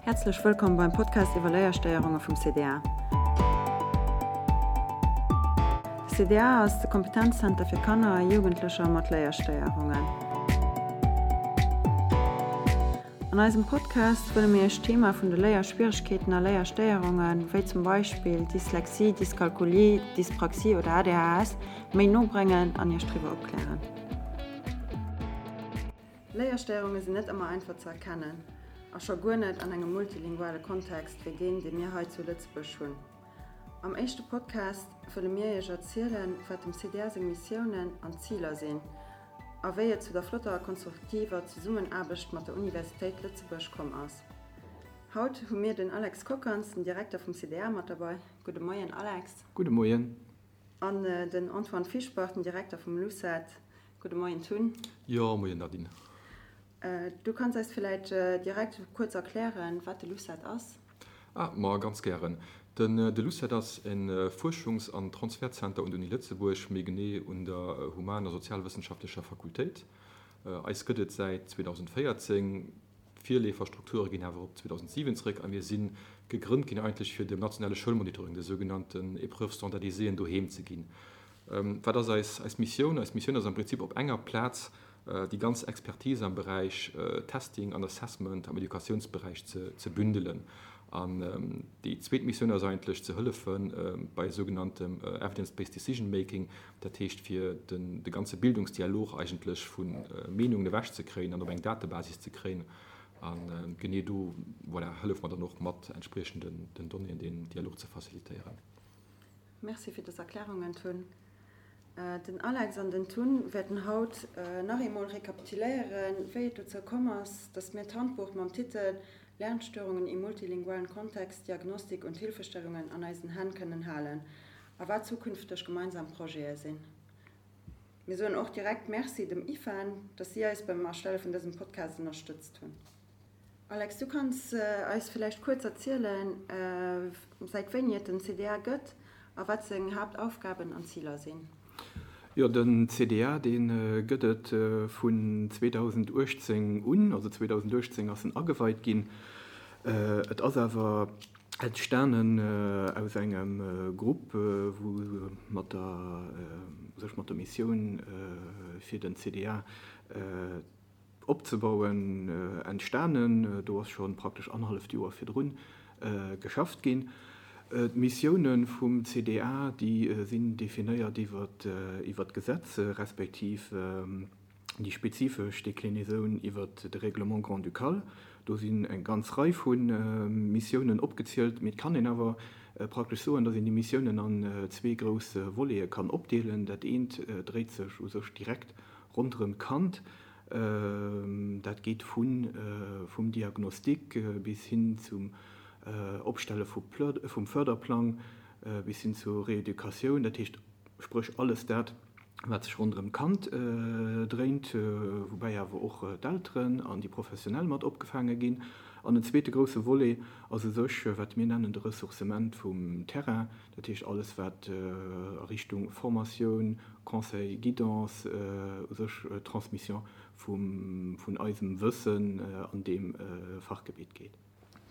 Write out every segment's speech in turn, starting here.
Häerzlech wëllkomm beim Podcast iwwer Léierstéierunge vum CDA. De CDA ass de Kompetenzzenter fir Kanner a Jugendlecher mat Léierstéierungen. An eisem Podcast wëlle mir Iech d'Thema vun de Léierschwieregkeeten a Léierstéierungen, wéi zum Beispill Dyslexie, Dyskalkulie, Dyspraxie oder ADHS, méi no bréngen an Iech driwwer opklären. Léierstéierunge sinn net ëmmer einfach ze erkennen, a scho guer net an engem multilinguale Kontext wéi deen, dee mir hei zu Lëtzebuerg hunn. Am éischte Podcast wëlle mir Iech erzielen, wat dem CDA seng Missiounen an Ziler sinn a wéi et zu der flotter a konstruktiver Zesummenaarbecht mat der Universitéit Lëtzebuerg komm ass. Haut hu mir den Alex Kockanz, den Direkter vum CDA, mat derbei. Gudde Moien, Alex. Gudde Moien. An den Antoine Fischbach, den Direkter vum LUCET. Gudde Moien, Tun. Jo, Moien, Nadine. Du kanns eis villäit direkt kuerz erklären, wat de LUCET ass? Ah, ma ganz gären. Den de LUCET ass e Fuerschungs an Transfertzenter un der Uni Lëtzebuerg, méi genee un der Human a Sozialwëssenschaftlecher Fakultéit. Eis gëtt et säit 2014. D'Virleeferstrukture ginn awer op 2007 zréck a mir si gegrënnt ginn eigentlech fir dem nationale Schoulmonitoring, de sougenannten Épreuves standardisées, doheem ze ginn. Wat ass eis eis Missioun? Eis Missioun ass am Prinzip op enger Plaz déi ganz Expertise am Beräich Testing an Assessment am Educatiounsberäich ze ze bündelen. An déi zweet Missioun ass eigentlech ze hëllefe bei sougenanntem Evidence-based decision making, dat heescht fir den de ganze Bildungsdialog eigentlech vu Meenungen ewech ze kréien an op eng Datebasis ze kréien. A genee do, voilà, hëllefe mer dann och mat entspriechenden den Donnéeën deen Dialog ze facilitéieren. Merci fir dës Erklärungen, Tun. Den Alex an den Tun wäerten haut nach eemol rekapituléieren, wéi et dozou komm ass, dass mir d'Handbuch mam Titel Lernstörungen im multilingualen Kontext, Diagnostik und Hilfestellungen an eisen Hänn kënnen halen a wat zukünfteg gemeinsam Projete sinn. Mir soen och direkt Merci dem IFAN, dass si eis beim Erstelle vun dësem Podcast ënnerstëtzt hunn. Alex, du kanns eis villäicht kuerz erzielen, säit wéini et den CDA gëtt a wat seng Haaptaufgaben an Ziler sinn? Jo, den CDA, dee gëtt et vun 2018 un, also 2018 ass en ageweit ginn. Et ass awer entstanen aus engem Grupp, wou mat der, u sech mat der Missioun fir den CDA opzebauen, entstanen. Do ass scho praktesch annerhalleft Joer virdrun geschafft ginn. D'Missioune vum CDA, déi sinn definéiert iwwer d'Gesetz, respektiv déi spezifesch Déclinaison iwwer de Règlement grand-ducal. Do sinn eng ganz Rei vu Missiounen opgezielt. Mee et kann een awer praktesch soen, datt een déi Missiounen an zwee grouss Volete kann opdeelen. Dat eent dréit sech u sech direkt ronderëm d'Kand. Dat geet vum Diagnostic bis hin zum Opstelle vum Förderplang, bis hin zur Rééducatioun, dat heescht spréch alles dat, wat sech ronderëm d'Kand dréint, woubäi awer och d'Elteren an déi Professionell mat opgefaange ginn. An en zweete grousse Volet ass u sech, wat mir nennen de Ressourcement vum Terrain, dat heescht alles, wat a Richtung Formatioun, Conseil, Guidance, u sech Transmission vun eisem Wëssen an deem Fachgebitt geet.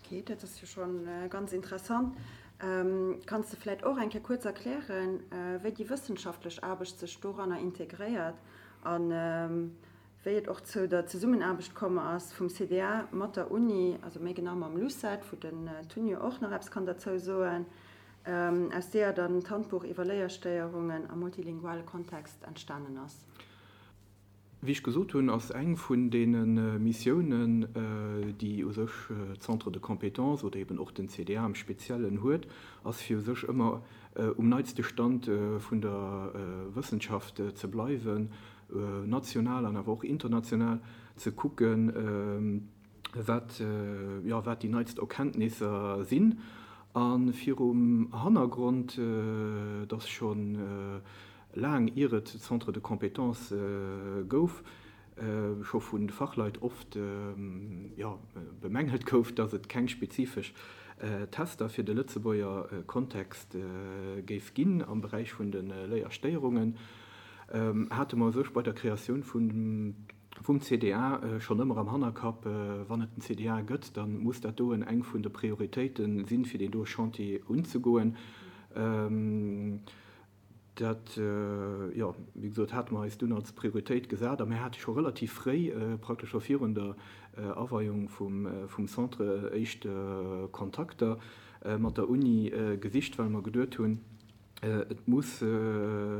Ok, dat ass jo scho ganz interessant. Kanns de vläit och eng Kéier kuerz erklären, wéi déi wëssenschaftlech Aarbecht sech doranner integréiert a wéi et och zou der Zesummenaarbecht komm ass vum CDA mat der Uni, also méi genau mam LUCET, wou den Tun jo och nach eppes kann derzou soen, aus deeër dann d'Handbuch iwwer Léierstéierungen am multilinguale Kontext entstanen ass? Wéi ech gesot hunn, ass eng vun deene Missiounen, déi u sech d'Centres de compétences oder eben och den CDA am Speziellen huet, ass fir u sech ëmmer um neitste Stand vun der Wëssenschaft ze bleiwen, national an awer och international ze kucken, wat, jo, wat déi neitst Erkenntnisser sinn. A virum Hannergrond, dass scho laang ier et Centres de compétences gouf, scho vu Fachleit oft, jo, bemängelt gouf, dass et keng spezifesch Tester fir de Lëtzebuerger Kontext géif ginn am Beräich vun de Léierstéierungen, hate mer u sech bei der Kreatioun vun. Vum CDA schonn ëmmer am Hannerkapp, wann et den CDA gëtt, da muss dat doen eng vun de Prioritéite sinn, fir deen doe Chantier unzegoen. Dat, jo, wéi gesot, hate mer eis dunn als Prioritéit gesat a mir hate scho relativ fréi, praktesch scho virun der Aweiung vum Centre, éischt Kontakter mat der Uni gesicht, well mer geduet hunn, Et muss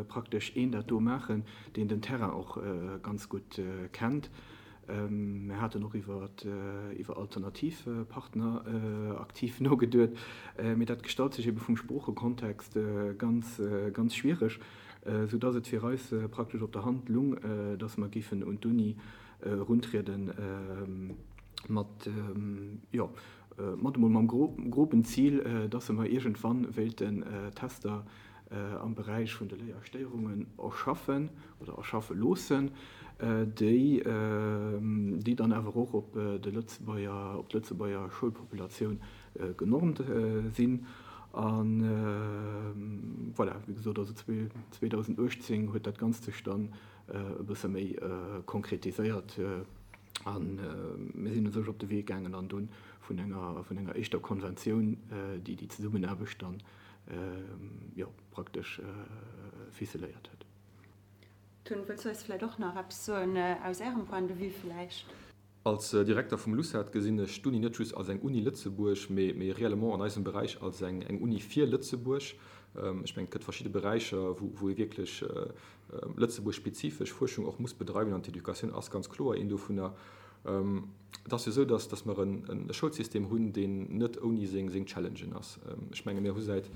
praktesch een dat do maachen, deen den Terrain och ganz gutt kennt. Mir haten och iwwer alternativ Partner aktiv nogeduet, mee dat gestalt sech ebe vum Sproochekontext ganz, ganz schwiereg, soudass et fir eis praktesch op der Hand lung, dass mer géifen un d'Uni eruntrieden mat, jo, Mat emol mam groben Zil, dass se mer iergendwann wéilten Tester am Beräich vun de Léierstéierungen erschaffen oder erschaffe loossen, déi déi dann awer och op de Lëtzebuerger, op d'Lëtzebuerger Schoulpopulatioun genormt sinn. A voilà, wéi gesot, also 2018 huet dat Ganzt sech dann e bësse méi konkretiséiert. A mir sinn u sech op de Wee gaangen an dunn vun enger, vun enger éischter Konventioun, déi déi Zesummenaarbecht dann, jo, praktesch ficeléiert huet. Tun, wëlls du eis vläicht och nach eppes soen aus Ärem Point de vue vläicht? Als Direkter vum LUCET gesinn ech d'Uni net just als eng Uni Lëtzebuerg, mee, mee réellement an eisem Beräich als eng, eng Uni fir Lëtzebuerg. Ech mengen, et gëtt verschidde Beräicher, wou, wou ee wierklech Lëtzebuerg-spezifesch Fuerschung och muss bedreiwen, an d'Educatioun ass ganz kloer een dovunner. Et ass jo esou, dass, dass mer e Schoulsystem hunn, deen net ouni seng, seng Challengen ass. Ech menge mir hu säit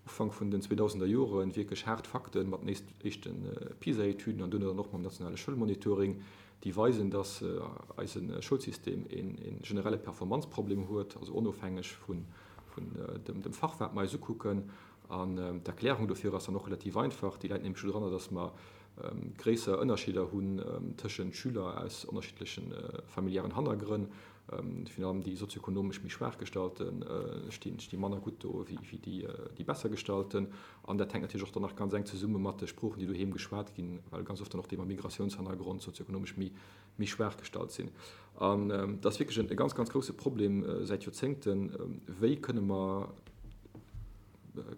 Ufank vun den 2000er Jore wierklech haart Fakte mat den éischte PISA-Etüden an duerno dann och mam nationale Schoulmonitoring, déi weisen, dass eise Schoulsystem e generelle Performanzproblem huet, also onofhängeg vun dem Fach, wat mer eis ukucken. An d'Erklärung dofir ass dann och relativ einfach, déi läit nämlech dodranner, dass mer gréisser Ënnerscheeder hunn tëschent Schüler aus ënnerschiddleche familiären Hannergrënn. Virun allem déi sozioekonomesch méi schwaach gestallte sti manner gutt do wéi déi besser gestallten. An dat hänkt natierlech och dann nach ganz enk zesumme mat de Sproochen, déi doheem geschwat ginn, well ganz oft dann och déi mam Migratiounshannergrond sozioekonomesch méi méi schwaach gestallt sinn. An dat ass wierklech e ganz, ganz grouse Problem säit Joerzéngten, Wéi kënne mer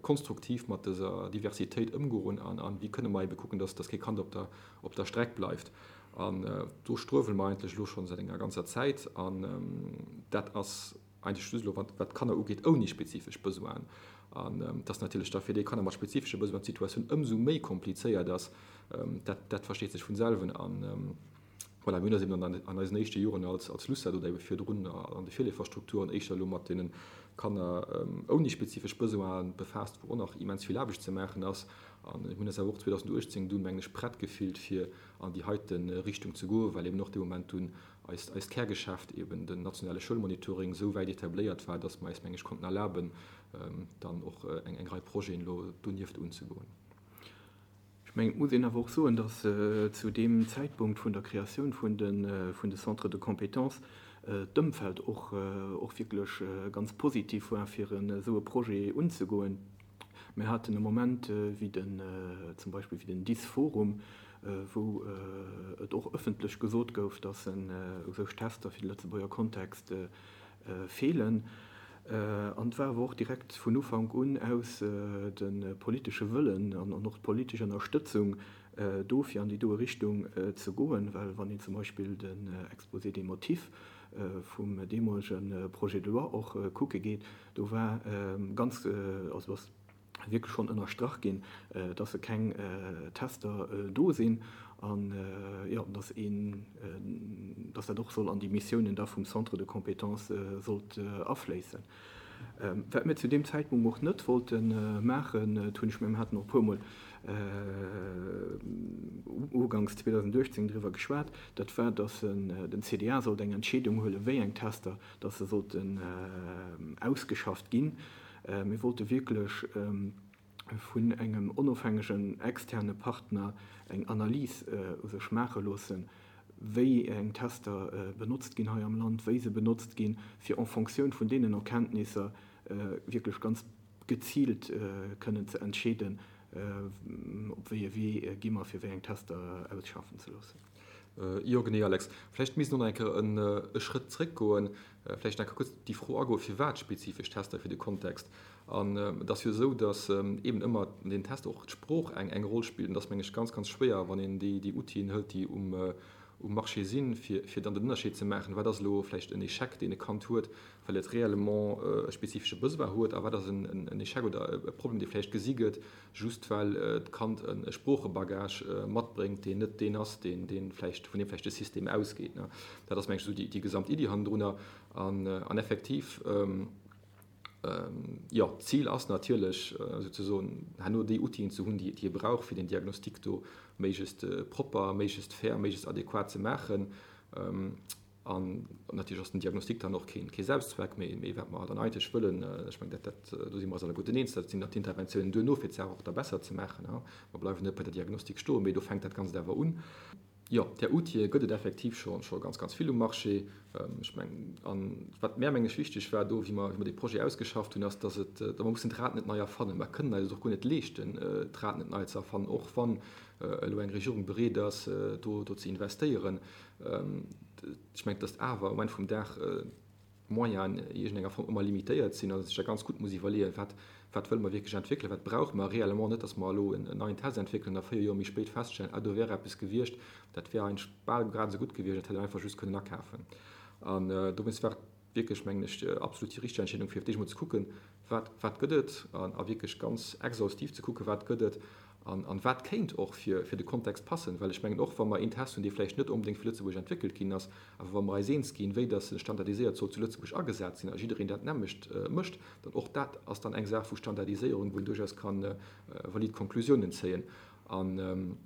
konstruktiv mat dëser Diversitéit ëmgoen an wéi kënne mer ebe kucken, dass kee Kand op der, op der Streck bleift? An do struewele mer eigentlech elo schonn säit enger ganzer Zäit. An dat ass eigentlech just elo, wat d'Kanner ugeet, ouni spezifesch Besoinen. An dass natierlech da fir déi Kanner mat spezifesche Besoinen d'Situatioun ëmsou méi komplizéiert ass, dat, dat versteet sech vun selwen. An voilà, mir hunn eis eben an eisen éischte Joren als, als LUCET oder ebe virdrun an de Virleeferstrukturen éischter elo mat deene Kanner ouni spezifesch Besoinen befaasst, wou och nach immens vill Aarbecht ze maachen ass. An mir hunn eis awer och 2018 dunn, mengen ech, prett gefillt, fir an déi heite Richtung ze goen, well eben och dee Moment dunn eist, eist Kärgeschäft, eben den nationale Schoulmonitoring, esou wäit etabléiert war, dass mer eis, meng ech, konnten erlaben, dann och eng, eng Rei Projeten elo donieft unzegoen. Ech mengen, et muss een awer och soen, dass zu deem Zäitpunkt vun der Kreatioun vun de, vun de Centres de compétences d'Ëmfeld och, och wierklech ganz positiv war, fir esou e Projet unzegoen. Mir haten e Moment wéi den, zum Beispill wéi den DIS-Forum, wou et och ëffentlech gesot gouf, dass u sech Tester fir de Lëtzebuerger Kontext feelen. An et war awer och direkt vun Ufank un aus de politesche Wëllen an och d'politesch Ënnerstëtzung do, fir an déi doe Richtung ze goen, well wann een zum Beispill den Exposé des motifs vum deemolege Projet de loi och kucke geet, Do war ganz, also ass wierklech schonn ënnerstrach ginn, dass e keng Tester do sinn an, jo, dass een, dass dat och soll an déi Missiounen da vum Centre de compétences sollt afléissen. Wat mir zu deem Zäitpunkt och net wollte maachen, dat hunn ech, mir haten och e puermol uganks 2018 driwwer geschwat, dat war, dass den CDA sollt eng Entscheedung huelen, wéi eng Tester dass se sollten ausgeschafft ginn. Mir wollte wierklech vun engem onofhängegen externe Partner eng Analys u sech maache loossen, wéi eng Tester benotzt ginn hei am Land, wéi se benotzt ginn, fir en Fonctioun vun deenen Erkenntnisser wierklech ganz geziilt kënnen ze entscheeden, op wéi e Wee gi mer, fir wéi eng Tester ausschaffen ze loossen. Jo, genee, Alex. Vläicht misst een och nach eng Kéier e Schrëtt zréckgoen, vläicht nach eng Kéier kuerz déi Fro agoen, firwat spezifesch Tester fir de Kontext. An et ass jo esou, datt eeben ëmmer an deenen Tester och d'Sprooch eng eng Roll spillt. An et ass, meng ech, ganz, ganz schwéier, wann een déi déi Outile hëlt, déi um um Marché sinn, fir fir dann den Ënnerscheed ze maachen, wat ass elo vläicht en Échec, deen e Kand huet, well et réellement e spezifesche Besoin huet, a wat ass en en Échec oder e Problem, dee vläicht gesi gëtt, just well d'Kand e Sproochebagage matbréngt, deen net deen ass, deen dee vläicht, vun deem vläicht de System ausgeet. Dat ass, meng ech, esou déi gesamt Iddi hannendrunner. An effektiv, jo, d'Zil ass natierlech souzesoen, herno déi Outilen ze hunn, déi ee brauch, fir den Diagnostic do méiglechst propper, méiglechst fair, méiglechst adequat ze maachen. An natierlech ass den Diagnostic dann och kee Selbstzweck, mee wat mer dann eigentlech wëllen, ech mengen, dat, dat, do si mer eis alleguerten eens, dat sinn dann d'Interventiounen duerno, fir d'Saach och da besser ze maachen. Mer bleiwen net bei der Diagnostik stoen, mee do fänkt dat Ganzt awer un. Jo, där Outile gëtt et effektiv scho scho ganz, ganz vill um Marché. Ech mengen, a wat mär, meng ech, wichteg war do, wéi mer, wéi mer dee Projet ausgeschafft hunn, ass, dass et, datt mer mussen d'Rad net nei erfannen. Mer kënnen eis et och guer net leeschten, d'Rad net nei ze erfannen, och wann elo eng Regierung bereet ass, do, do ze investéieren. Ech mengen, datt awer um Enn vum Dag d'Moyenen an iergendenger Form ëmmer limitéiert sinn an ee sech da ganz gutt muss iwwerleeën, wat, wat wëlle mer wierklech entwéckelen, wat brauche mer réellement, net datt mer elo en neien Test entwéckelen a 4 Joer méi spéit feststellen, ah do wär eppes gewiescht, dat wär eigentlech bal grad esou gutt gewiescht, dat hätt een einfach just kënnen akafen. An dowéinst war et wierklech, mengen ech, absolut déi richteg Entscheedung, fir fir d'éischt emol ze kucken, wat, wat gëtt et, a wierklech ganz exhaustiv ze kucken, wat gëtt et an wat kéint och fir, fir de Kontext passen. Well ech mengen, och wa mer een Test hunn, dee vläicht net onbedéngt fir Lëtzebuerg entwéckelt ginn ass, awer wa mer eis eens ginn, wéi dass en standardiséiert soll zu Lëtzebuerg agesat sinn a jiddereen dat nämmlecht mécht, dann och dat ass dann eng Saach vu Standardiséierung, wou een duerchaus ka valid Konklusiounen zéien. An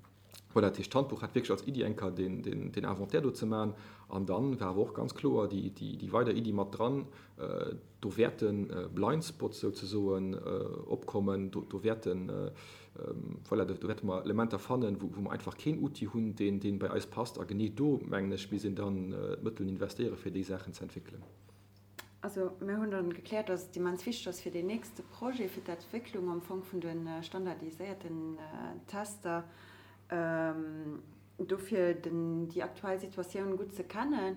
voilà, dat heescht, d'Handbuch hat wierklech als Iddi eng Kéier deen, deen Inventaire do ze maachen. An dann war awer och ganz kloer déi, déi weider Iddi mat dran, Do wäerte Blind Spots souzesoen opkommen, do wäerten, voilà, do wäerte mer Elementer fannen, wou mer einfach keen Outil hunn, deen bei eis passt. A genee do, mengen ech, misst een dann d'Mëttel investéieren, fir déi Saachen ze entwéckelen. Also mir hunn dann gekläert, dass et immens wichteg ass fir deen nächste Projet, fir d'Entwécklung am Fong vun de standardiséierten Tester, Dofir den déi aktuell Situatioun gutt ze kennen.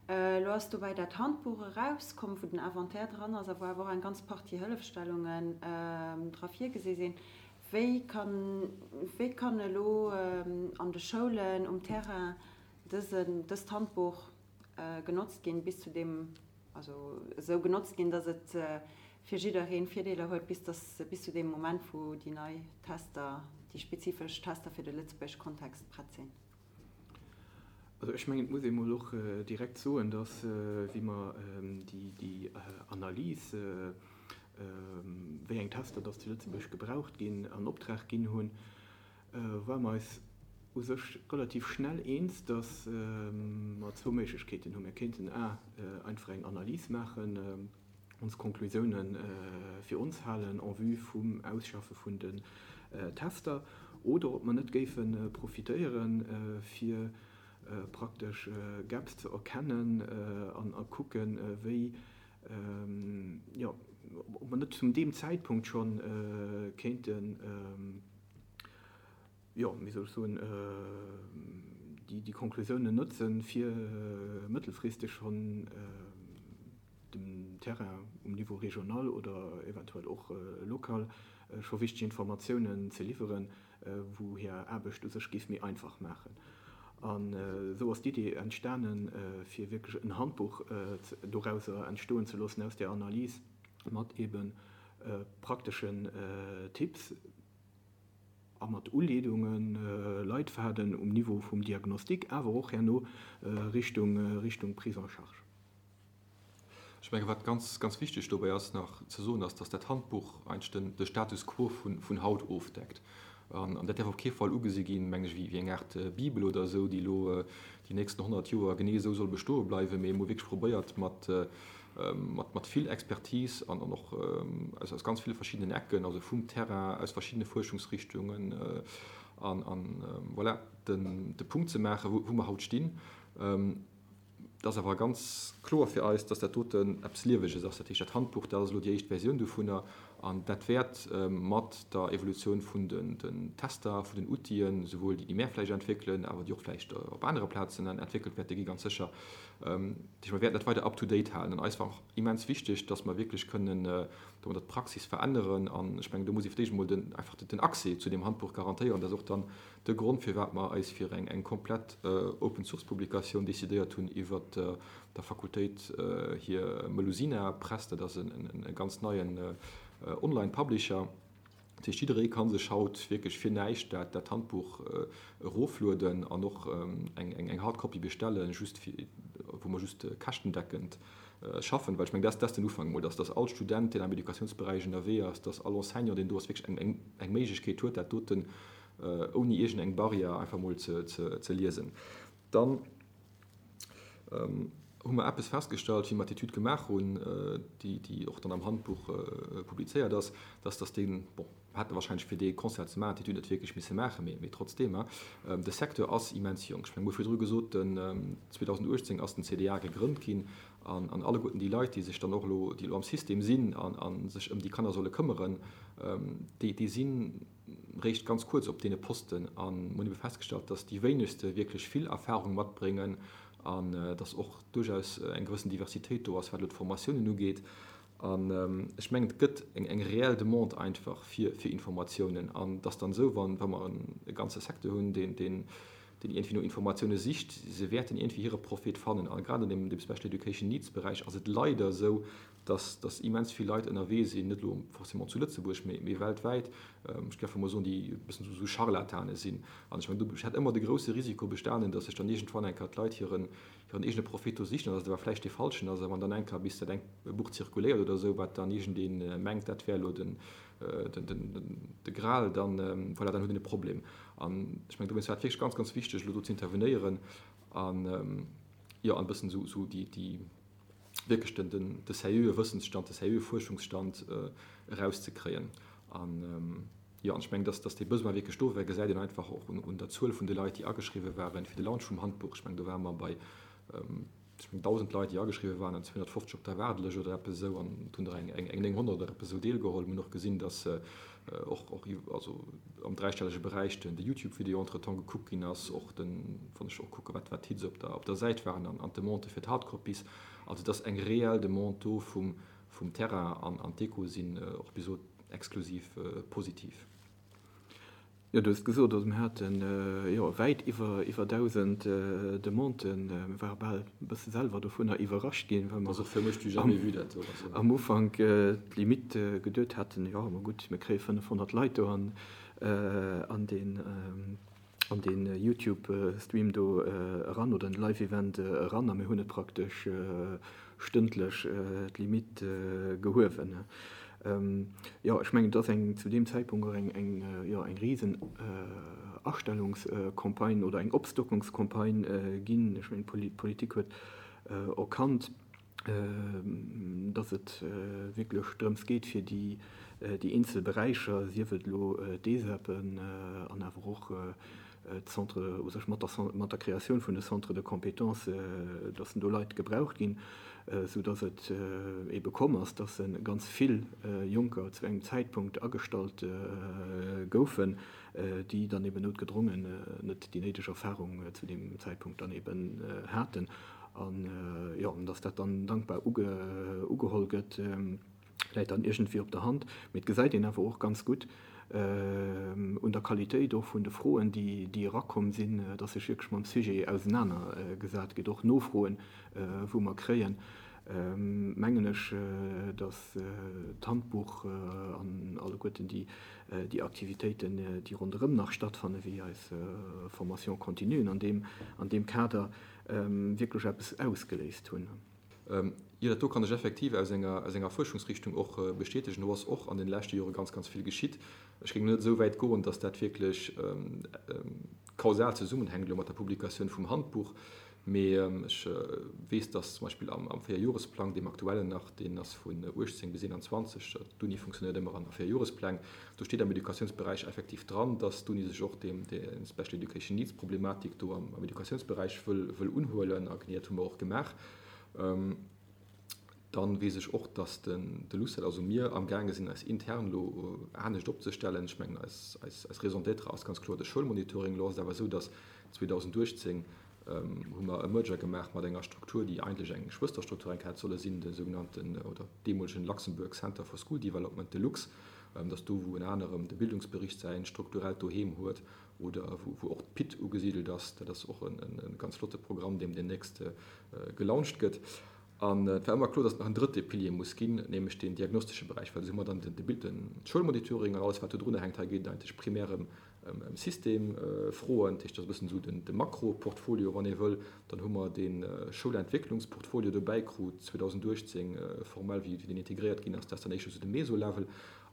Elo ass dobäi dat Handbuch erauskomm, wou den Inventaire dran ass a wou awer och eng ganz Partie Hëllefstellungen dra virgesi sinn. Wéi kann, wéi kann elo an de Schoulen um Terrain dësen, dëst Handbuch genotzt ginn, bis zu deem, also esou genotzt ginn, datt et fir jiddereen Virdeeler huet, bis dass, bis zu deem Moment, wou déi nei Tester, déi spezifesch Tester fir de lëtzebuergesche Kontext prett sinn. Also ech mengen, et muss ee mol och direkt soen, dass, wéi mer déi Analys, wéi eng Tester dass zu Lëtzebuerg gebraucht ginn, an Optrag ginn hunn, ware mer eis u sech relativ schnell eens, dass mer zwou Méiglechkeeten hunn. Mir kéinten a einfach eng Analys maachen, ons Konklusiounen fir ons halen en vue vum Ausschaffe vun den Tester, oder ob mer net géife profitéieren, fir praktesch Gaps ze erkennen an a kucken, wéi, jo, ob mer net zum deem Zäitpunkt scho kéinten, jo, wéi soll ech soen, déi Konklusiounen notzen, fir mëttelfristeg schonn dem Terrain um Niveau régional oder eventuell och local scho wichteg Informatiounen ze liwweren, wou hir Aarbecht u sech géif méi einfach maachen. An esou ass d'Idee entstanen, fir wierklech en Handbuch dorauser entstoen ze loossen aus där Analys mat eebe prakteschen Tipps a mat Uleedungen, Leitfaden um Niveau vum Diagnostic, awer och herno Richtung Richtung Prise en charge. Ech menge wat ganz, ganz wichteg dobäi ass nach ze soen, ass, datt dat Handbuch eigentlech den, de Status quo vun, vun haut ofdeckt. An, an dat däerf op kee Fall ugesi ginn, meng ech, wéi, wéi eng Aart Bibel oder esou, déi elo déi nächsten 100 Joer genee esou soll bestoe bleiwen, mee wou wierklech probéiert mat, mat, mat vill Expertise an, an och aus, aus ganz ville verschiddenen Ecken, also vum Terrain, aus verschiddene Fuerschungsrichtungen an, an voilà, den, de Punkt ze maachen, wou, wou mer haut stinn. Et ass awer ganz kloer fir eis, dass dat doten eppes Lieweges ass. Dat heescht, dat Handbuch, dat ass elo déi éischt Versioun dovunner. An dat wäert mat der Evolutioun vun den Tester, vun den Outile, souwuel déi, déi mär vläicht entwéckelen, awer déi och vläicht op anere Plazen entwéckelt wäerte gi ganz sécher, dat heescht, mer wäerten dat weider up to date halen. An eis war och immens wichteg, dass mer wierklech kënnen domadder d'Praxis veränneren. An ech mengen, do muss ee fir d'éischt emol den, einfach den Accès zu deem Handbuch garantéieren. Dat ass och dann de Grond, firwat mer eis fir eng komplett Open-Source-Publikatioun decidéiert hunn iwwert der Fakultéit hir Melusina Press. Dat ass e ganz neien Online-Publisher. Dat heescht, jidderee ka sech haut wierklech fir näischt dat Handbuch eroflueden an och eng Hardcopy bestellen, just fir, wou mer just käschtendeckend schaffen. Well ech mengen, dat ass den Ufank emol, dass all Student, deen am Educatiounsberäich ënnerwee ass, dass all Enseignant, deen do ass, wierklech eng Méiglechkeet huet, dat doten ouni iergend eng Barrière einfach mol ze liesen. Dann hu mer eppes festgestallt, wéi mer d'Etüd gemaach hunn, déi och dann am Handbuch publizéiert ass, dass dass deen, bon, mer hätte wahrscheinlech fir dee Concert ze maachen d'Etüd net wierklech misse maachen, mee trotzdeem, de Secteur ass immens jonk. Ech mengen, mir hu virdru gesot, den 2018 ass den CDA gegrënnt ginn an alleguerten déi Leit, déi sech dann och elo, déi elo am System sinn a sech ëm déi Kanner solle këmmeren, déi sinn, réischt ganz kuerz op deene Posten an mir hunn ebe festgestallt, dass déi wéinegste wierklech vill Erfahrung matbréngen an dass och duerchaus eng gewëssen Diversitéit do ass, wat elo d'Formatiounen ugeet. An ech mengen, et gëtt eng reell Demande einfach fir Informatiounen an et ass dann esou, wa mer e ganze Secteur hunn, deen iergendwéi no Informatioune sicht, se wäerten iergendwéi hire Prophet fannen. A grad an deem Special Education Needs Beräich ass et leider esou, dass dass immens vill Leit ënnerwee sinn, net elo forcément zu Lëtzebuerg, mee mee weltwäit, ech géif emol soen, déi e bëssen esou Scharlatane sinn. An ech mengen, do hätt ëmmer de grousse Risiko bestanen, dass sech dann iergendwann eng Kéier d'Leit hiren hiren eegene Profit do sichen an dass et awer vläicht dee falschen ass. A wann dann eng Kéier bis dat eng e Buch zirkuléiert oder esou, wat dann iergendee mengt, dat wär elo den den den de Gral, dann voilà, dann huet een e Problem. An ech mengen, dowéinst war et wierklech ganz, ganz wichteg, elo do ze intervenéieren an, jo, an e bëssen esou esou déi déi wierklech den, den, de seriöe Wëssensstand, de seriöe Fuerschungsstand erauszekréien. An, jo, an ech mengen, dass, dass dee Besoin wierklech do war, gesäit een einfach och un, un der Zuel vun de Leit, déi ageschriwwe waren fir de Launch vum Handbuch. Ech mengen, do ware mer bei, ech mengen, 1.000 Leit, déi ageschriwwe waren an 250 op der Waardelëscht oder eppes esou. An et hunn der eng, eng, eng 900 oder eppes esou deelgeholl. Mir hunn och gesinn, dass och, och, also am dräistellege Beräich den, de YouTube-Video entretemps gekuckt ginn ass, och den, wann ech och kucke wat, wat d'Hits op der, op der Säit waren an, an d'Demandë fir d'Hardcopies. Also et ass eng reell Demande do vum, vum Terrain an, an d'Echoe sinn och bis elo exklusiv positiv. Jo, du hues et gesot, also mir haten, jo, wäit iwwer, iwwer 1.000 Demanden. Mir ware bal e bësse selwer dovunner iwwerrascht ginn, well mer am Ufank d'Limite geduet haten, jo, ma gutt, mir kréie 500 Leit do an, an deen, an deen Youtube-Stream do eran oder en Live-Event eran a mir hunn et praktesch stëndlech d'Limite gehuewen. Jo, ech mengen, et ass eng zu deem Zäitpunkt och eng, eng, jo, eng risen Astellungscampagne oder eng Opstockungscampagne ginn. Ech mengen, d'Politik huet erkannt, dass et wierklech drëms geet, fir déi, déi eenzel Beräicher, sief et elo d'ESEPen an awer och d'Centres, u sech mat der, mat der Kreatioun vun de Centres de compétences, dass do Leit gebraucht ginn, sou dass et ebe komm ass, dass ganz vill Jonker zu engem Zäitpunkt agestallt goufen, déi dann eben noutgedrongen net déi néideg Erfahrung zu deem Zäitpunkt dann eben haten. An, jo, an dass dat dann dankbar ugeholl gëtt. läit dann iergendwéi op der Hand, mee et gesäit een awer och ganz gutt un der Qualitéit och vun de Froen, déi erakomm sinn, dass sech wierklech mam Sujet ausenanergesat gëtt. Och Nofroen, wou mer kréien, mengen ech, dass d'Handbuch an alleguerten déi Aktivitéiten, déi ronderëm nach stattfannen, wéi eis Formation continuen an deem Kader wierklech eppes ausgeléist hunn. Jo, dat do kann ech effektiv aus enger, aus enger Fuerschungsrichtung och bestätegen. Do ass och an deene leschte Jore ganz, ganz vill geschitt. Ech géing net esou wäit goen, dass dat wierklech kausal zesummenhänkt elo mat der Publikatioun vum Handbuch, mee ech weess, dass zum Beispill am, am Véierjoresplang, deem aktuellen nach, deen ass vun 18 bis 21, d'Uni funktionéiert ëmmer an Véierjorespläng, do steet am Educatiounsberäich effektiv dran, dass d'Uni sech och deem, der Special Education Needs Problematik do am, am Educatiounsberäich wëll, wëll unhuelen. A genee dat hu mer och gemaach. Dann weess ech och, dass den de LUCET, also mir, amgaange sinn eis intern elo anescht opzestellen. Ech mengen, eis eis Raison d'être ass ganz kloer de Schoulmonitoring. Elo ass et awer esou, dass 2018 hu mer e Merger gemaach mat enger Struktur, déi eigentlech eng Schwësterstruktur eng hätt solle sinn, de sougenannten oder deemolegen Luxembourg Center for School Development, de LUCS. Dat ass do, wou ënner anerem de Bildungsbericht säin strukturellt Doheem huet oder wou wou och d'PIT ugesidelt ass. Dat ass och e ganz flotte Programm, deem deemnächst gelauncht gëtt. An et war ëmmer kloer, datt et nach en drëtte Pilier muss ginn, nämlech deen diagnostesche Beräich, well esou hu mer dann de Schoulmonitoring an alles, wat do drunner hänkt. Hei geet et eigentlech primär ëm Systemfroen, dat heescht, dat ass e bëssen esou de Makroportfolio, wann ee wëll. Dann hu mer de Schoulentwécklungsportfolio dobäi krut 2018 formell, wéi deen integréiert ginn ass. Dat ass dann éischter esou de Meso-Level.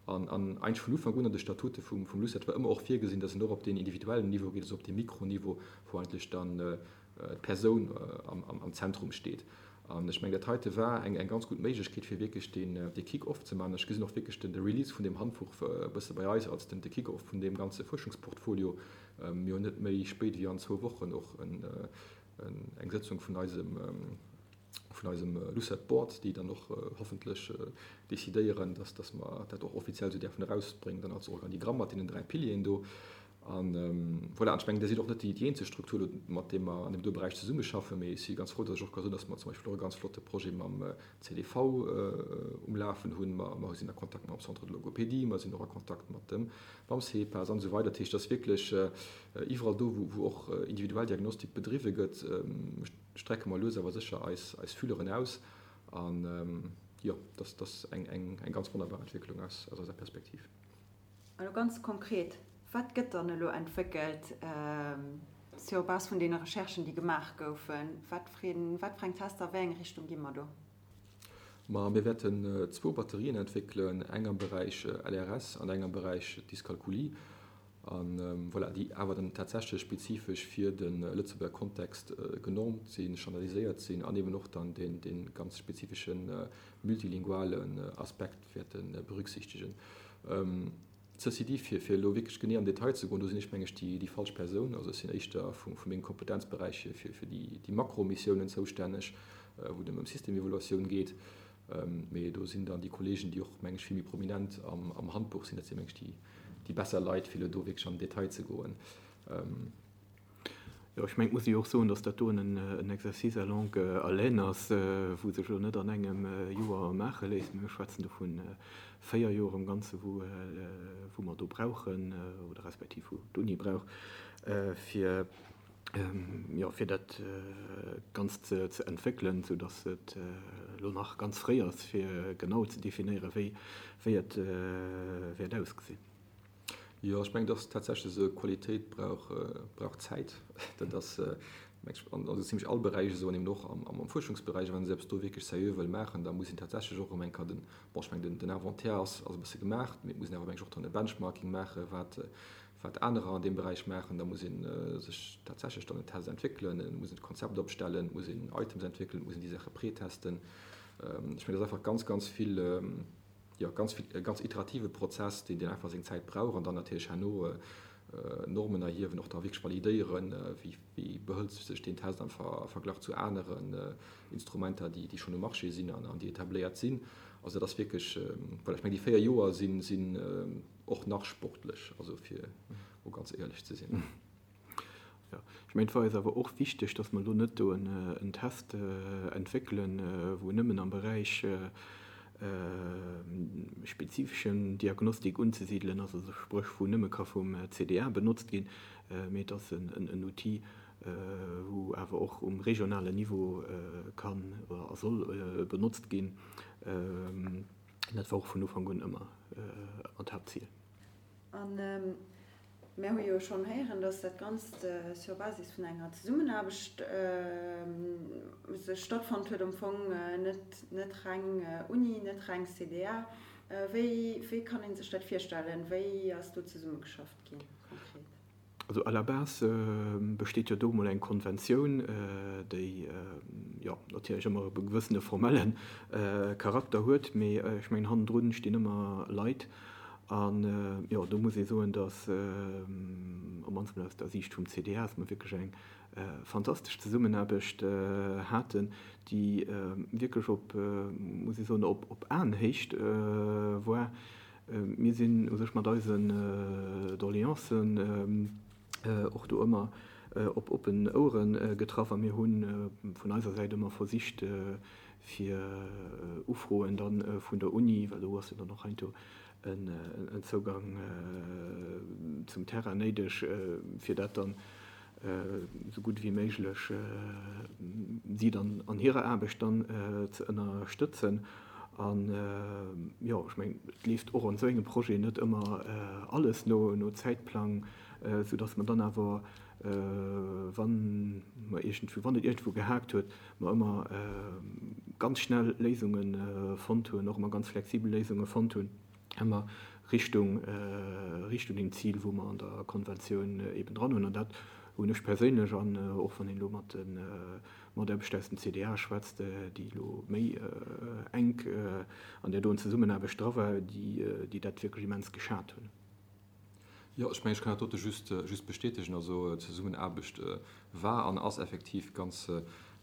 An eigentlech vun Ufank un an de Statute vum LUCET war ëmmer och virgesinn, datt een och op deen individuellen Niveau geet, also op dee Mikroniveau, wou eigentlech dann d'Persoun am Zentrum steet. An ech mengen, dat heite war eng ganz gutt Méiglechkeet, fir wierklech dee Kick-off ze maachen. Ech gesinn och wierklech de Release vun deem Handbuch e bësse bei eis als de Kick-off vun deem ganze Fuerschungsportfolio. Mir hunn net méi spéit wéi an zwou Wochen och eng Sëtzung vun eisem vun eisem LUCET Board, déi dann och hoffentlech decidéieren, dass mer dat och offiziell esou däerfen erausbréngen, dann als Organigramm mat deenen 3 Pilieren do. An voilà, an ech mengen, Dir sidd och net déi eenzeg Struktur elo, mat deem mer an deem do Beräich zesummeschaffen, mee ech si ganz frou, datt ech och ka soen, datt mer zum Beispill och e ganz flotte Projet mam CDV um Lafen hunn. Mer, mer sinn a Kontakt mam Centre de logopédie, mer sinn och a Kontakt mat dem, mam CEPAS an esou weider. Dat heescht, et ass wierklech iwwerall do, wou, wou och individuell Diagnostik bedriwwe gëtt, strecke mer lues awer sécher eis, eis Fühleren aus. An jo, dat, dat ass eng, eng, eng ganz wonnerbar Entwécklung aus, aus eiser Perspektiv. Elo ganz konkret, Wat gëtt dann elo entwéckelt sur base vun deene Recherchen, déi gemaach goufen? Wat fir eng Tester, a wéi eng Richtung gi mer do? Ma mir wäerten zwou Batterien entwéckelen, eng am Beräich LRS an eng am Beräich Dyskalkulie. A voilà, déi awer dann tatsächlech spezifesch fir de Lëtzebuerger Kontext genormt sinn, standardiséiert sinn an eben och dann dee ganz spezifesche multilingualen Aspekt wäerte berücksichtegen. Ceci dit, fir elo wierklech genee am Detail ze goen, do sinn ech, meng ech, déi falsch Persoun. Also ech sinn éischter vu mengem Kompetenzberäich hier fir déi Makromissiounen zoustänneg, wou et ëm Systemevaluatioun geet. Mee do sinn dann déi Kollegen, déi och, meng ech, vill méi prominent am Handbuch sinn, dat sinn, meng ech, déi besser Leit, fir elo do wierklech an den Detail ze goen. Jo, ech mengen, et muss ee jo och soen, datt dat doen en Exercice à longue haleine ass, wou sech elo net an engem Joer maache léisst. Mir schwätzen do vu 4 Joer am Ganze wou mer do brauchen oder respektiv wou d'Uni brauch, fir, jo, fir dat Ganzt ze entwéckelen, soudatt et elo nach ganz fréi ass, fir genau ze definéieren, wéi wéi et wäert ausgesinn. Jo, ech mengen, dass tatsächlech esou Qualitéit brauch, brauch Zäit. Dat ass, meng ech, an esou zimlech all Beräich esou an eben och am, am Fuerschungsberäich. A wann ee se eppes do wierklech seriö wëll maachen, da muss een tatsächlech och erëm eng Kéier den, bon, ech mengen, den, den Inventaire ass, ass e bësse gemaach, mee et muss een awer, meng ech, och dann e Benchmarking maachen, wat, wat anerer an deem Beräich maachen. Da muss ee sech tatsächlech dann en Test entwéckelen, et muss een d'Konzept opstellen, et muss een Items entwéckelen, et muss een déi Saache pretesten. Ech mengen, dat ass einfach ganz, ganz vill, jo, ganz vill, e ganz iterative Prozess, deen, deen einfach seng Zäit brauch an dann natierlech herno Normen erhiewen, och da wierklech validéieren, wéi, wéi behëlt sech deen Test am Verglach zu aneren Instrumenter, déi, déi schonn um Marché sinn an, an déi etabléiert sinn. Also dat ass wierklech, voilà, ech mengen, déi 4 Joer sinn, sinn och nach sportlech, also fir mol ganz éierlech ze sinn. Jo, ech mengen, et war eis awer och wichteg, dass mer elo net do en Test entwéckelen, wou nëmmen am Beräich spezifeschen Diagnostik unzesidelen ass, also spréch wou nëmme ka vum CDA benotzt ginn, mee et ass en Outil, wou awer och um regionalen Niveau kann a soll benotzt ginn. Dat war och vun Ufank un ëmmer d'Haaptzil. Mär hu jo schonn héieren, dass dat Ganzt sur Basis vun enger Zesummenaarbecht sech stattfonnt huet, am Fong net net reng Uni, net reng CDA. Wéi wéi kann ee sech dat virstellen? Wéi ass do zesummegeschafft ginn konkret? Also à la base besteet jo do emol eng Konventioun, déi jo natierlech ëmmer e gewëssene formelle Charakter huet, mee ech mengen hannendrun stinn ëmmer Leit. An, jo, do muss ee soen, dass, op mannst mol aus der Siicht vum CDA, dass mer wierklech eng fantastesch Zesummenaarbecht haten, déi wierklech op, muss ee soen, op Aenhéicht war. Mir sinn u sech mat eisen Doleancen och do ëmmer op oppen Ouere getraff a mir hu vun eiser Säit ëmmer versicht, fir Ufroen da vun der Uni, well do ass jo dann och heiansdo en Zougang zum Terrain néideg, fir dat dann esou gutt ewéi méiglech si dann an hirer Aarbecht dann ze ënnerstëtzen. An, jo, ech mengen, et leeft och an esou engem Projet net ëmmer alles no Zäitplang, soudass mer dann awer, wann mer iergendwou, wann et iergendwou gehaakt huet, mer ëmmer ganz schnell Léisunge fonnt hunn, och ëmmer ganz flexibel Léisunge fonnt hunn, ëmmer Richtung, Richtung deem Zil, wou mer an der Konventioun eeben dran hunn. An dat hunn ech perséinlech, an och wann een elo mat de Mataarbechter aus dem CDA schwätzt, déi elo méi enk an där doen Zesummenaarbecht dra war, déi dat wierklech immens geschat hunn. Jo, ech mengen, ech kann dat dote just, just bestätegen. Also d'Zesummenaarbecht war an ass effektiv ganz,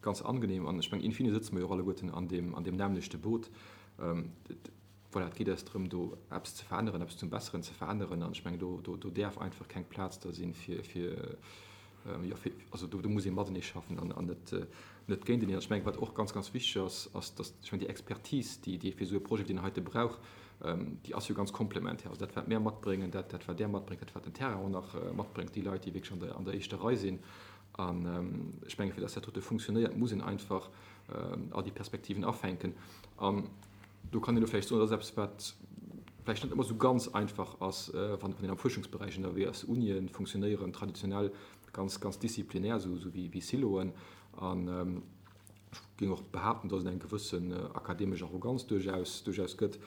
ganz angenehm. An ech mengen, in fine sëtze mer jo och alleguerten an deem, an deem nämmlechte Boot. Voilà, et geet eis drëm, do eppes ze veränneren, eppes zum Besseren ze veränneren. An ech mengen, do, do, do däerf einfach keng Plaz da sinn, fir, fir, jo, fir, also do, do muss ee matenee schaffen an, an net, net géinteneen. An ech mengen, wat och ganz, ganz wichteg ass, ass, dass, ech mengen, déi Expertise, déi, déi ee fir esou e Projet wéi deen heite brauch, déi ass jo ganz komplementär. Also dat, wat mär matbréngen, dat, dat wat Där matbréngt, dat, wat den Terrain och nach matbréngt, déi Leit, déi wierklech an der, an der éischter Rei sinn. An ech mengen, fir dass dat dote funktionéiert, muss een einfach all déi Perspektiven afänken. An do kann een elo vläicht soen, dat ass eppes, wat vläicht net ëmmer esou ganz einfach ass, wann een am Fuerschungsberäich ënnerwee ass. Unie funktionéieren traditionell ganz, ganz disziplinär, esou wéi Siloen. An ech géing och behaapten, dass et eng gewëssen akademesch Arroganz duerchaus, duerchaus gëtt.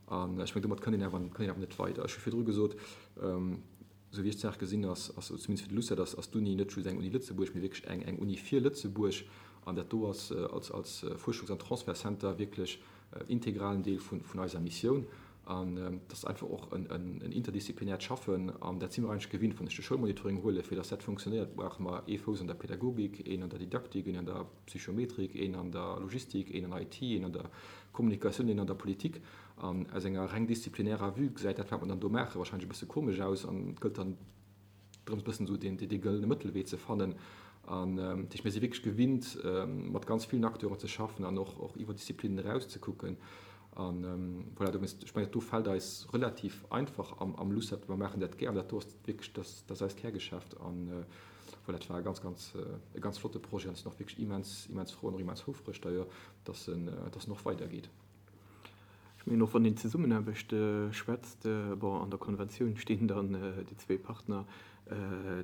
An ech mengen, domat kënnt een awer, kënnt een awer net weider. Ech hu virdru gesot, esou wéi ech d'Saach gesinn, ass, ass zumindest fir de LUCET, ass, ass d'Uni net just eng Uni Lëtzebuerg, mee wierklech eng, eng Uni fir Lëtzebuerg. An dat do ass als, als Fuerschungs an Transfertcenter wierklech integralen Deel vun, vun eiser Missioun. An dat ass einfach och en, en, en interdisziplinäert Schaffen. An dat si mer eigentlech gewinnt, wann ech de Schoulmonitoring huelen, fir datt dat funktionéiert, brauche mer ee Fouss an der Pädagogik, een an der Didaktik, een an der Psychometrik, een an der Logistik, een an IT, een an der Kommunikatioun, een an der Politik. An aus enger reng disziplinärer Vue gesäit dat, wat mer dann do maachen, wahrscheinlech e bësse komesch aus an et gëllt dann drëms, e bëssen esou deen, dee gëllene Mëttelwee ze fannen. An dat heescht, mir si wierklech gewinnt, mat ganz villen Acteuren ze schaffen an och, och iwwer Disziplinen eraus ze kucken. An voilà, dowéinst, ech mengen, dat do fält eis relativ einfach am, am LUCET. Mer maachen dat gär an dat do ass wierklech, dat, dat ass eist Kärgeschäft. An voilà, et war e ganz, ganz, e ganz flotte Projet an ech sinn och wierklech immens, immens frou an och immens houfreg d'ailleurs, dass en, dass en och weidergeet. Ech mengen och, wann een Zesummenaarbecht schwätzt, bon, an der Konventioun stinn dann déi zwee Partner,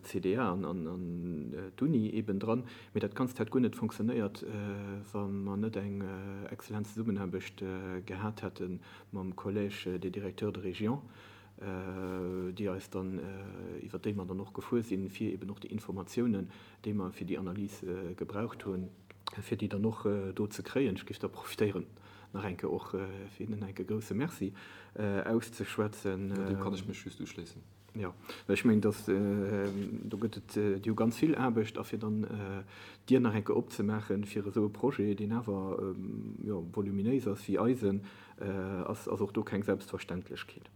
CDA an d'Uni eeben dran, mee dat Ganzt hätt guer net fonctionnéiert, wa mer net eng exzellent Zesummenaarbecht gehat hätte mam Collège des directeurs de région, déi eis dann, iwwert déi mer dann och gefuer sinn, fir eeben och déi Informatiounen, déi mer fir déi Analys gebraucht hunn, fir déi dann och do ze kréien. Ech géif da profitéieren, nach eng Kéier och fir hinnen enke grouse Merci auszeschwätzen. Jo, deem kann ech mech just uschléissen. Jo, well ech mengen, dass do gëtt et, déi hu ganz vill Aarbecht, a fir dann d'Dier nach eng Kéier opzemaachen fir esou e Projet, deen awer, jo, voluminéis ass wéi eisen, ass och do keng Selbstverständlechkeet.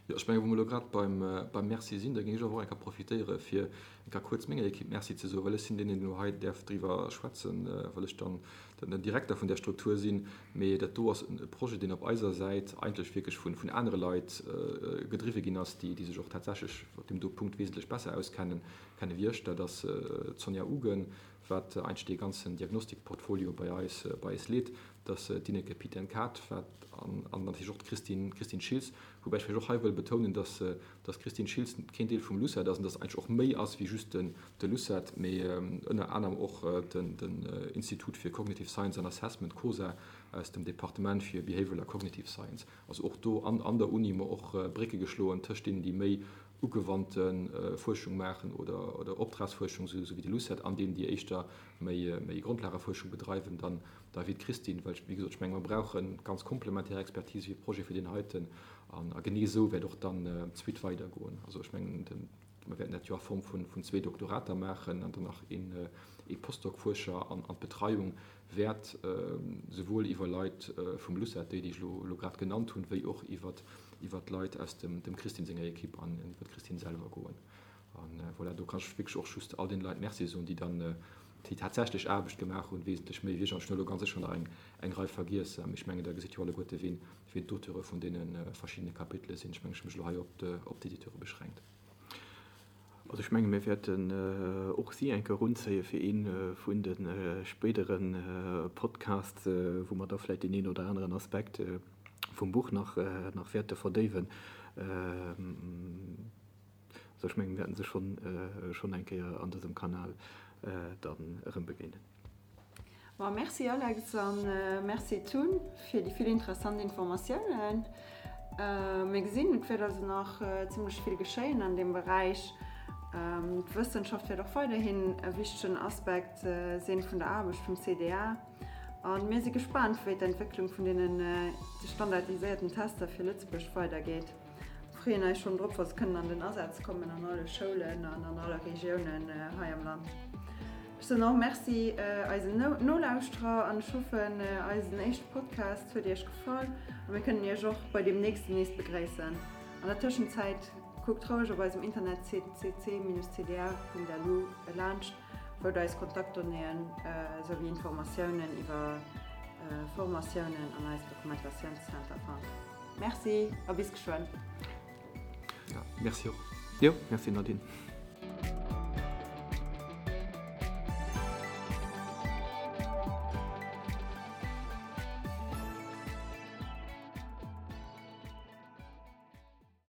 Jo, ech mengen, wou mer elo grad beim, beim Merci sinn, da géing ech awer och eng Kéier profitéiere fir eng Kéier kuerz menger Ekipp Merci ze soen, well ech sinn deen, deen elo hei däerf driwwer schwätzen, well ech dann den Direkter vun där Struktur sinn. Mee dat do ass e Projet, deen op eiser Säit eigentlech wierklech vun, vun anere Leit gedriwwe ginn ass, déi, déi sech och tatsächlech op deem do Punkt wesentlech besser auskennen, kenne wéi ech. Dat ass d'Sonja Ugen, wat eigentlech dee ganzen Diagnostikportfolio bei eis, bei eis leet. Dass d'Ineke Piten-Kaat, wat an an natierlech och d'Christine, Christine Schiltz, woubäi ech vläicht och hei wëll betounen, dass dass d'Christine Schiltz keen Deel vum LUCET ass an dass eigentlech och méi ass wéi just den de LUCET, mee ënner anerem och den den Institut fir Cognitive Science and Assessment, COSA, aus dem Departement fir Behavioral a Cognitive Science. Also och do an an der Uni hu mer och Brécke geschloen tëscht deenen, déi méi. ugewannte Fuerschung maachen oder Optragsfuerschung, esou wéi de LUCET, an deenen, déi éischter méi Grondlagefuerschung bedreiwen, dann da wéi d'Christine. Well, wéi gesot, ech menge mer brauche ganz komplementär Expertise fir Projete wéi deen heiten. A genee esou wäert och dann d'Suite weidergoen. Also ech mengen, mer wäerten dat jo a Form vun zwee Doktorater maachen an dann nach ee Postdoc-Fuerscher an d'Betreiung wäert souwuel iwwer Leit vum LUCET, déi, déi ech elo grad genannt hunn, wéi och iwwer d'Leit aus dem Christine senger Ekipp an iwwer d'Christine selwer goen. A voilà, do kann ech wierklech och just all deene Leit Merci soen, déi dann déi tatsächlech Aarbecht gemaach hunn, wesentlech méi wéi ech. An ech hunn elo ganz sécher nach eng Rei vergiess, mee ech mengen, da gesitt jo alleguerte wien d'Auteure vun deene verschiddene Kapitele sinn. Ech mengen, ech hu mech elo hei op d'Editeure beschränkt. Also ech menge mir wäerten och si eng Kéier erunzéie fir ee vun de spéidere Podcasts, wou mer da vläicht deen een oder aneren Aspekt vum Buch nach wäerte verdéiwen. Also ech menge mir wäerten se schonn eng Kéier an dësem Kanal dann erëm begéinen. Ma merci Alex an merci Tun fir déi vill interessant Informatiounen. Mir gesinn, et wäert also nach zimlech vill geschéien an deem Beräich. D'Wëssenschaft wäert och weiderhin e wichtegen Aspekt sinn vun der Aarbecht vum CDA. A mir si gespaant, wéi d'Entwécklung vun deenen standardiséierten Tester fir Lëtzebuerg weidergeet. Freeën eis schonn drop, wa se kënnen an den Asaz kommen an alle Schoulen an an alle Regiounen hei am Land. Ech soen och Merci eisen Nolauschterer an ech hoffen, eisen éischte Podcast huet Iech gefall a mir kënnen Iech och bei deem nächsten nees begréissen. An der Tëschenzäit kuckt roueg op eisem Internetsite cc-cda.lu laanscht, wou der eis Kontaktdonnéeën esouwéi Informatiounen iwwer Formatiounen an eisen Dokumentatiounscenter fannt. Merci a bis geschwënn. Ja, merci och. Jo, merci Nadine.